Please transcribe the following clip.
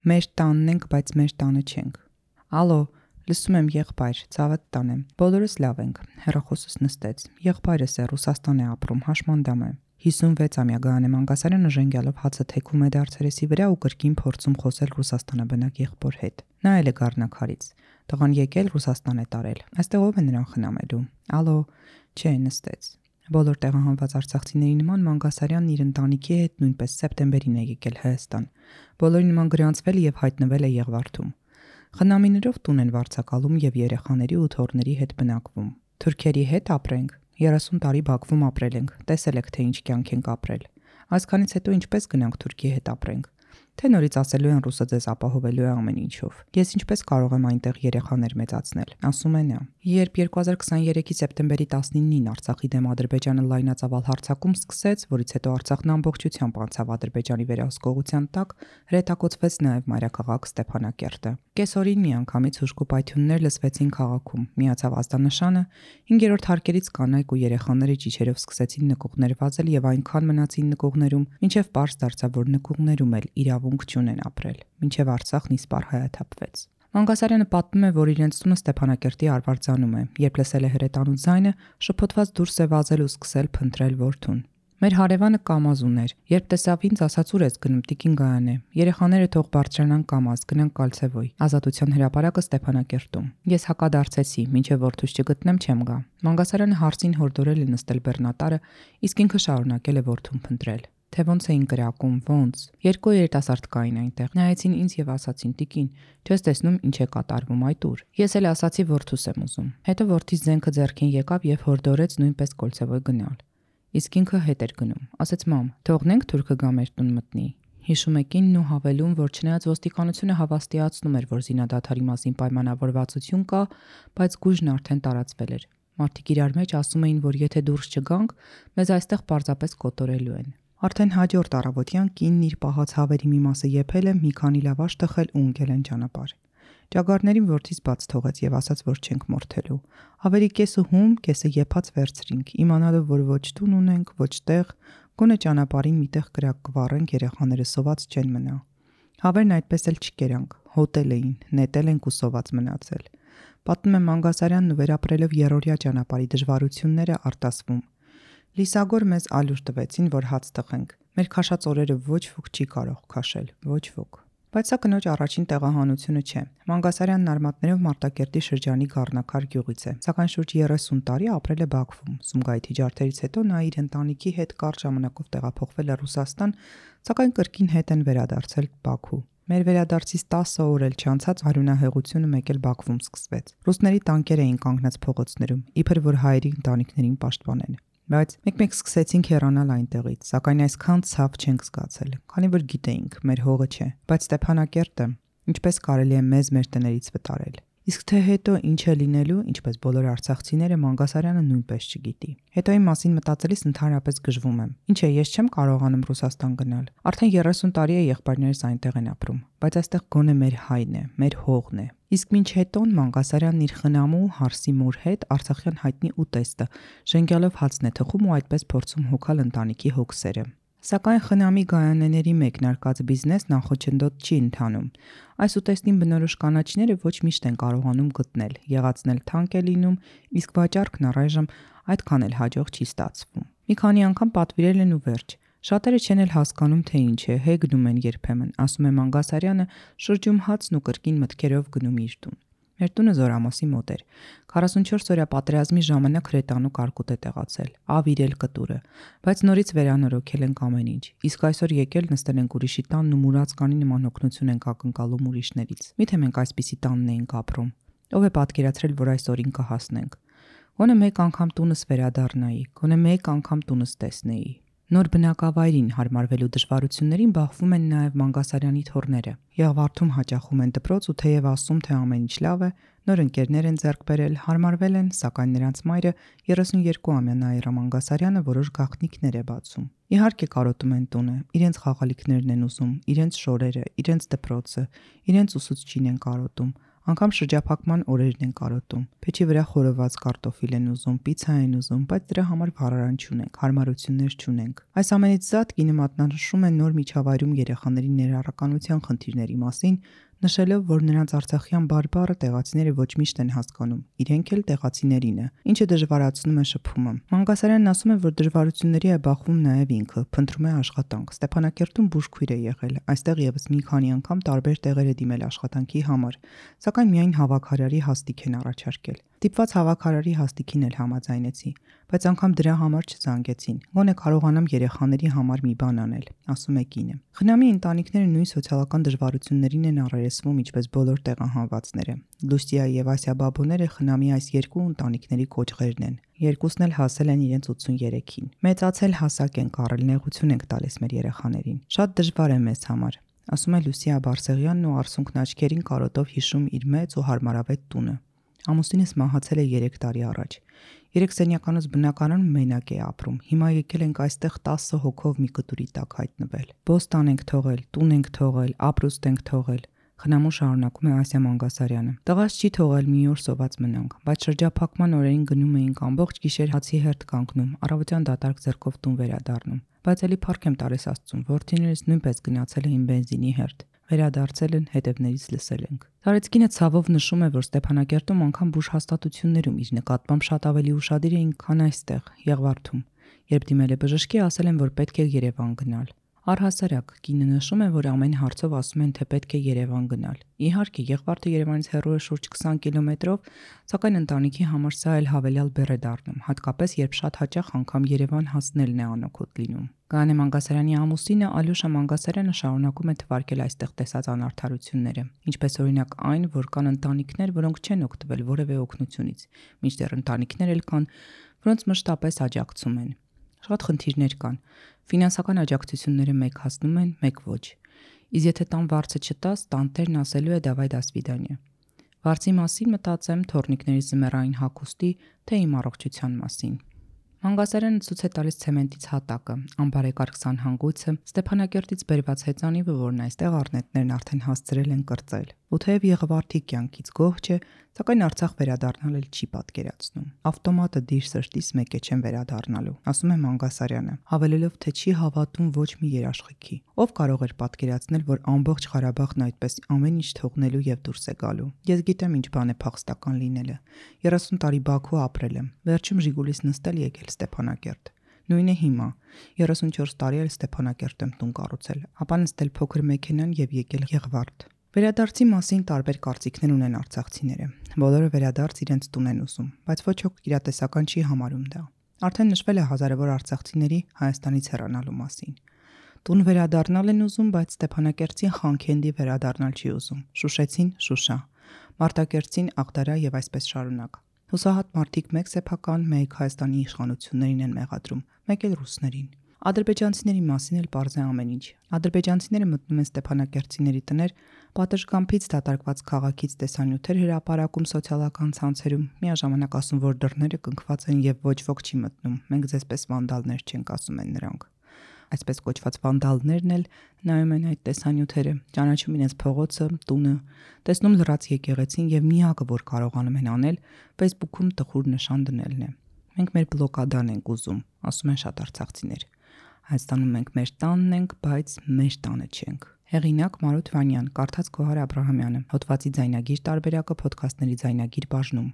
Մեր տանն ենք, բայց մեր տանը չենք։ Ալո, լսում եմ եղբայր, ցավդ տան եմ։ Բոլորս լավ ենք։ Հեռախոսս նստեց։ Եղբայրս է Ռուսաստան է ապրում, հաշմանդամ է։ 56-ամյա Գայանե Մանգասարյանը ժենգյալով հացը թեքում է դարձերեսի վրա ու կրկին փորձում խոսել Ռուսաստանաբնակ եղբոր հետ։ Նա էլ է Գառնակարից։ Տղան եկել Ռուսաստան է տարել։ Այստեղ ով է նրան խնամելու։ Ալո, չէ, նստեց։ Բոլոր տեղահանված արցախցիների նման Մանգասարյանն իր ընտանիքի հետ նույնպես սեպտեմբերին է եկել Հայաստան։ Բոլորի նման գրանցվել եւ հայտնվել է Եղվարդում։ Խնամիներով տուն են վարձակալում եւ երեխաների ու թոռների հետ բնակվում։ Թուրքերի հետ ապրենք։ 30 տարի Բաքվում ապրել ենք, տեսել եք թե ինչ կյանք ենք ապրել։ Այսքանից հետո ինչպես գնանք Թուրքիի հետ ապրենք։ Թե նորից ասելու են ռուսը ձեզ ապահովելու է ամեն ինչով։ Ես ինչպես կարող եմ այնտեղ երեխաներ մեծացնել, ասում է նա։ Երբ 2023-ի սեպտեմբերի 19-ին Արցախի դեմ Ադրբեջանը լայնածավալ հարձակում սկսեց, որից հետո Արցախն ամբողջությամբ անցավ Ադրբեջանի վերահսկողության տակ, հրետակոծվեց նաև մայրաքաղաք Ստեփանակերտը։ Կեսօրին միանգամից հուժկու պայթյուններ լսվեցին քաղաքում, միացավ ազդանշանը, 5-րդ հարկերից կանայք ու երեխաները ճիչերով սկսեցին նկուղներ վազել եւ այնքան մնացին նկուղներում, մինչեւ պարզ դարձավ, որ նկուղներում էլ իրավունք չունեն ապրել, մինչեւ Արցախն իսպառ հայաթափվեց։ Մանգասարյանը պատմում է, որ իրենց տունը Ստեփանակերտի Արվարձանում է, երբ լսել է հրետանու ձայնը, շփոթված դուրս է վազել ու սկսել փնտրել որդուն։ Մեր հարևանը Կամազ ուներ, երբ տեսավ ինձ, ասաց ուր ես գնում տիկին Գայանե, երեխաները թող բարձրանան Կամազ, գնանք Կալցևոյ, Ազատության հրապարակը Ստեփանակերտում։ Ես հակադարձեցի, մինչև որդուս չգտնեմ չեմ գա։ Մանգասարյանը հարցին հորդորել է նստել բեռնատարը, իսկ ինքը շարունակել է որդուն փնտրել։ Թե ոնց էին կրակում, ոնց։ Երկու երիտասարդ կային այնտեղ։ Նայեցին ինձ եւ ասացին՝ տիկին, չես տեսնում ինչ է կատարվում այդ ուր։ Ես էլ ասացի որդուս եմ ուզում։ Հետո որդիս զենքը ձեռքին եկավ եւ հորդորեց նույնպես Կոլցևոյ գնալ։ Իսկ ինքը հետ էր գնում։ Ասեց՝ մամ, թողնենք թուրքը գա մեր տուն մտնի։ Հիշում է կինն ու հավելում, որ չնայած ոստիկանությունը հավաստիացնում էր, որ զինադադարի մասին պայմանավորվածություն կա, բայց գույժն արդեն տարածվել էր։ Մարդիկ իրար մեջ ասում էին, որ եթե դուրս չգանք, մեզ այստեղ պարզապես կոտորելու են։ Արդեն հաջորդ առավոտյան կինն իր պահած հավերի մի մասը եփել է, մի քանի լավաշ տխել ու ընկել են ճանապարհ։ Ճագարներին որդից բաց թողեց եւ ասաց, որ չենք մորթելու։ Հավերի կեսը հում, կեսը եփած վերցրինք, իմանալով, որ ոչ տուն ունենք, ոչ տեղ, գոնե ճանապարհին միտեղ կրակ կվառենք, երեխաները սոված չեն մնա։ Հավերն այդպես էլ չկերանք, հոտել էին, նետել ենք ու սոված մնացել։ Պատմում է Մանգասարյանն ու վերապրելով երրորդյա ճանապարհի դժվարությունները արտասվում։ Լիսագոր մեզ ալյուր տվեցին, որ հաց տխենք։ Մեր քաշած օրերը ոչ ոք չի կարող քաշել, ոչ ոք։ Բայց սա կնոջ առաջին տեղահանությունը չէ։ Մանգասարյանն արմատներով Մարտակերտի շրջանի Գառնակար գյուղից է, սակայն շուրջ 30 տարի ապրել է Բաքվում։ Սումգայիթի ջարդերից հետո նա իր ընտանիքի հետ կարճ ժամանակով տեղափոխվել է Ռուսաստան, սակայն կրկին հետ են վերադարձել Բաքու։ Մեր վերադարձից 10 օր էլ չանցած արյունահեղությունը մեկ էլ Բաքվում սկսվեց։ Ռուսների տանկեր էին կանգնած փողոցներում, իբր որ հայերի ընտանիքներին պաշտպանեն։ Բայց մեկ-մեկ սկսեցինք հեռանալ այնտեղից, սակայն այսքան ցավ չենք զգացել, քանի որ գիտեինք, մեր հողը չէ, բայց Ստեփանակերտը ինչպես կարելի է մեզ մեր տներից վտարել։ Իսկ թե հետո ինչ է լինելու, ինչպես բոլոր արցախցիները, Մանգասարյանը նույնպես չգիտի։ Հետոյի մասին մտածելիս ընդհանրապես գժվում եմ։ Ինչ է, ես չեմ կարողանում Ռուսաստան գնալ։ Արդեն 30 տարի է եղբայրներս այնտեղ են ապրում, բայց այստեղ գոնե մեր հայն է, մեր հողն է։ Իսկ մինչ հետոն Մանգասարյանն իր խնամու Հարսի մոր հետ Արցախյան հայտնի ուտեստը ժենգյալով հացն է թխում ու այդպես փորձում հոգալ ընտանիքի հոգսերը։ Սակայն խնամի Գայանեների մեկնարկած բիզնեսն անխոչնդոտ չի ընթանում։ Այս ուտեստին բնորոշ կանաչիները ոչ միշտ են կարողանում գտնել, եղածնել թանկ է լինում, իսկ վաճառքն առայժմ այդքան էլ հաջող չի ստացվում։ Մի քանի անգամ պատվիրել են ու վերջ։ Շատերը չեն էլ հասկանում, թե ինչ է, հեգնում են երբեմն, ասում է Մանգասարյանը, շրջում հացն ու կրկին մտքերով գնում իր տուն։ Մեր տունը Զորամասի մոտ էր։ 44-օրյա պատերազմի ժամանակ հրետանու կարկուտ է տեղացել, ավիրել կտուրը, բայց նորից վերանորոգել ենք ամեն ինչ։ Իսկ այսօր եկել նստել ենք ուրիշի տանն ու մուրացկանի նման օգնություն ենք ակնկալում ուրիշներից։ Միթե մենք այսպիսի տանն էինք ապրում։ Ով է պատկերացրել, որ այս օրին կհասնենք։ Գոնե մեկ անգամ տունս վերադառնայի, գոնե մեկ անգամ տունս տեսնեի։ Նոր բնակավայրին հարմարվելու դժվարություններին բախվում են նաև Մանգասարյանի թոռները։ Եղվարդում հաճախում են դպրոց ու թեև ասում, թե ամեն ինչ լավ է, նոր ընկերներ են ձեռք բերել, հարմարվել են, սակայն նրանց մայրը 32-ամյա Նաիրա Մանգասարյանը որոշ գաղտնիքներ է բացում։ Իհարկե կարոտում են տունը, իրենց խաղալիքներն են ուզում, իրենց շորերը, իրենց դպրոցը, իրենց ուսուցչին են կարոտում, Անգամ շրջափակման օրերն են կարոտում։ Փեչի վրա խորոված կարտոֆիլ են ուզում, պիցցա են ուզում, բայց դրա համար վարարան չունենք, հարմարություններ չունենք։ Այս ամենից զատ կինը մատնանշում է նոր միջավայրում երեխաների ներառականության խնդիրների մասին, նշելով, որ նրանց արցախյան բարբառը տեղացիները ոչ միշտ են հասկանում, իրենք էլ տեղացիներինը, ինչը դժվարացնում է շփումը։ Մանգասարյանն ասում է, որ դժվարությունների է բախվում նաև ինքը, փնտրում է աշխատանք։ Ստեփանակերտում բուժքույր է եղել, այստեղ եւս մի քանի անգամ տարբեր տեղեր է դիմել աշխատանքի համար, սակայն միայն հավաքարարի հաստիք են առաջարկել։ Տիպված հավաքարարի հաստիքին էլ համաձայնեցի, բայց անգամ դրա համար չզանգեցին։ Գոնե կարողանամ երեխաների համար մի բան անել, ասում է կինը։ Խնամի ընտանիքները նույն սոցիալական դժվարություններին են առերեսվում, ինչպես բոլոր տեղահանվածները։ Լուսիա եւ Ասիա բաբուները խնամի այս երկու ընտանիքների կոճղերն են։ Երկուսն էլ հասել են իրենց 83-ին։ Մեծացել հասակ են կառել, նեղություն ենք տալիս մեր երեխաներին։ Շատ դժվար է մեզ համար, ասում է Լուսիա Բարսեղյանն ու արցունքն աչքերին կարոտով հիշում իր մեծ ու հարմարավետ տունը։ Ամուսինս մահացել է 3 տարի առաջ։ 3 սենյականոց բնակարանում մենակ է ապրում։ Հիմա եկել ենք այստեղ 10 հոգով մի կտուրի տակ հայտնվել։ Բոստան ենք թողել, տուն ենք թողել, ապրուստ ենք թողել։ Խնամու շարունակում է Ասիա Մանգասարյանը։ Տղաս չի թողել մի օր սոված մնանք, բայց շրջափակման օրերին գնում էինք ամբողջ գիշեր հացի հերթ կանգնում, առավոտյան դատարկ ձեռքով տուն վերադառնում։ Բայց էլի փառք եմ տալիս Աստծուն, որդիներս նույնպես գնացել էին բենզինի հերթ։ Վերադարձել են, հետևներից լսել ենք։ Տարեցկինը ցավով նշում է, որ Ստեփանակերտում անգամ բուժհաստատություններում իր նկատմամբ շատ ավելի ուշադիր էին, քան այստեղ, Եղվարդում։ Երբ դիմել է բժշկի, ասել են, որ պետք է Երևան գնալ։ Առհասարակ, կինը նշում է, որ ամեն հարցով ասում են, թե պետք է Երևան գնալ։ Իհարկե, Եղվարդը Երևանից հեռու է շուրջ 20 կիլոմետրով, սակայն ընտանիքի համար սա էլ հավելյալ բեռ է դառնում, հատկապես երբ շատ հաճախ անգամ Երևան հասնելն է անօգուտ լինում։ Կանե Մանգասարյանի ամուսինը Ալյոշա Մանգասարյանը շարունակում է թվարկել այստեղ տեսած անարդարությունները, ինչպես օրինակ այն, որ կան ընտանիքներ, որոնք չեն օգտվել որևէ օգնությունից, մինչդեռ ընտանիքներ էլ կան, որոնց մշտապես աջակցում են։ Շատ խնդիրներ կան։ Ֆինանսական աջակցությունները մեկ հասնում են, մեկ ոչ։ Իսկ եթե տան վարձը չտաս, տանտերն ասելու է «դավայ դա սվիդանյա»։ Վարձի մասին մտածեմ թորնիկների զմերային հագուստի, թե իմ առողջության մասին։ Մանգասարյանը ցույց է տալիս ցեմենտից հատակը, անբարեկարգ սանհանգույցը, Ստեփանակերտից բերված հեծանիվը, որն այստեղ առնետներն արդեն հասցրել են կրծել։ Ու թեև Եղվարդի կյանքից գոհ չէ, սակայն Արցախ վերադառնալ էլ չի պատկերացնում։ Ավտոմատը դիր սրտից մեկ է չեն վերադառնալու, ասում է Մանգասարյանը, հավելելով, թե չի հավատում ոչ մի երաշխիքի։ Ով կարող էր պատկերացնել, որ ամբողջ Ղարաբաղն այդպես ամեն ինչ թողնելու եւ դուրս է գալու։ Ես գիտեմ ինչ բան է փախստական լինելը։ 30 տարի Բաքու ապրել եմ, վերջում Ժիգուլիս նստել եկել Ստեփանակերտ։ Նույնը հիմա 34 տարի էլ Ստեփանակերտ եմ տուն կառուցել, ապա նստել փոքր մեքենան եւ եկել Եղվարդ։ Վերադարձի մասին տարբեր կարծիքներ ունեն արցախցիները։ Բոլորը վերադարձ իրենց տուն են ուզում, բայց ոչ ոք իրատեսական չի համարում դա։ Արդեն նշվել է հազարավոր արցախցիների Հայաստանից հեռանալու մասին։ Տուն վերադառնալ են ուզում, բայց Ստեփանակերտին Խանքենդի վերադառնալ չի ուզում։ Շուշեցին Շուշա, Մարտակերտին Աղդարա եւ այսպես շարունակ։ Հուսահատ մարդիկ մեկ սեփական, մեկ Հայաստանի իշխանություններին են մեղադրում, մեկ էլ ռուսներին։ Ադրբեջանցիների մասին էլ պարզ է ամեն ինչ։ Ադրբեջանցիները մտնում են ստեփանակերտցիների տներ, պատշգամբից դատարկված քաղաքից տեսանյութեր հրապարակում սոցիալական ցանցերում, միաժամանակ ասում, որ դռները կնքված են եւ ոչ ոք չի մտնում։ Մենք ձեզպես վանդալներ չենք, ասում են նրանք։ Այսպես կոչված վանդալներն էլ նայում են այդ տեսանյութերը, ճանաչում իրենց փողոցը, տունը, տեսնում լրաց եկեղեցին եւ միակը, որ կարողանում են անել, Facebook-ում տխուր նշան դնելն է։ Մենք մեր բլոկադան ենք ուզում, ասում են շատ արցախցիներ։ Հայաստանում մենք մեր տանն ենք, բայց մեր տանը չենք։ Հեղինակ Մարութ Վանյան, կարդաց Գոհար Աբրահամյանը, հոդվածի ձայնագիր տարբերակը Փոդքասթների ձայնագիր բաժնում։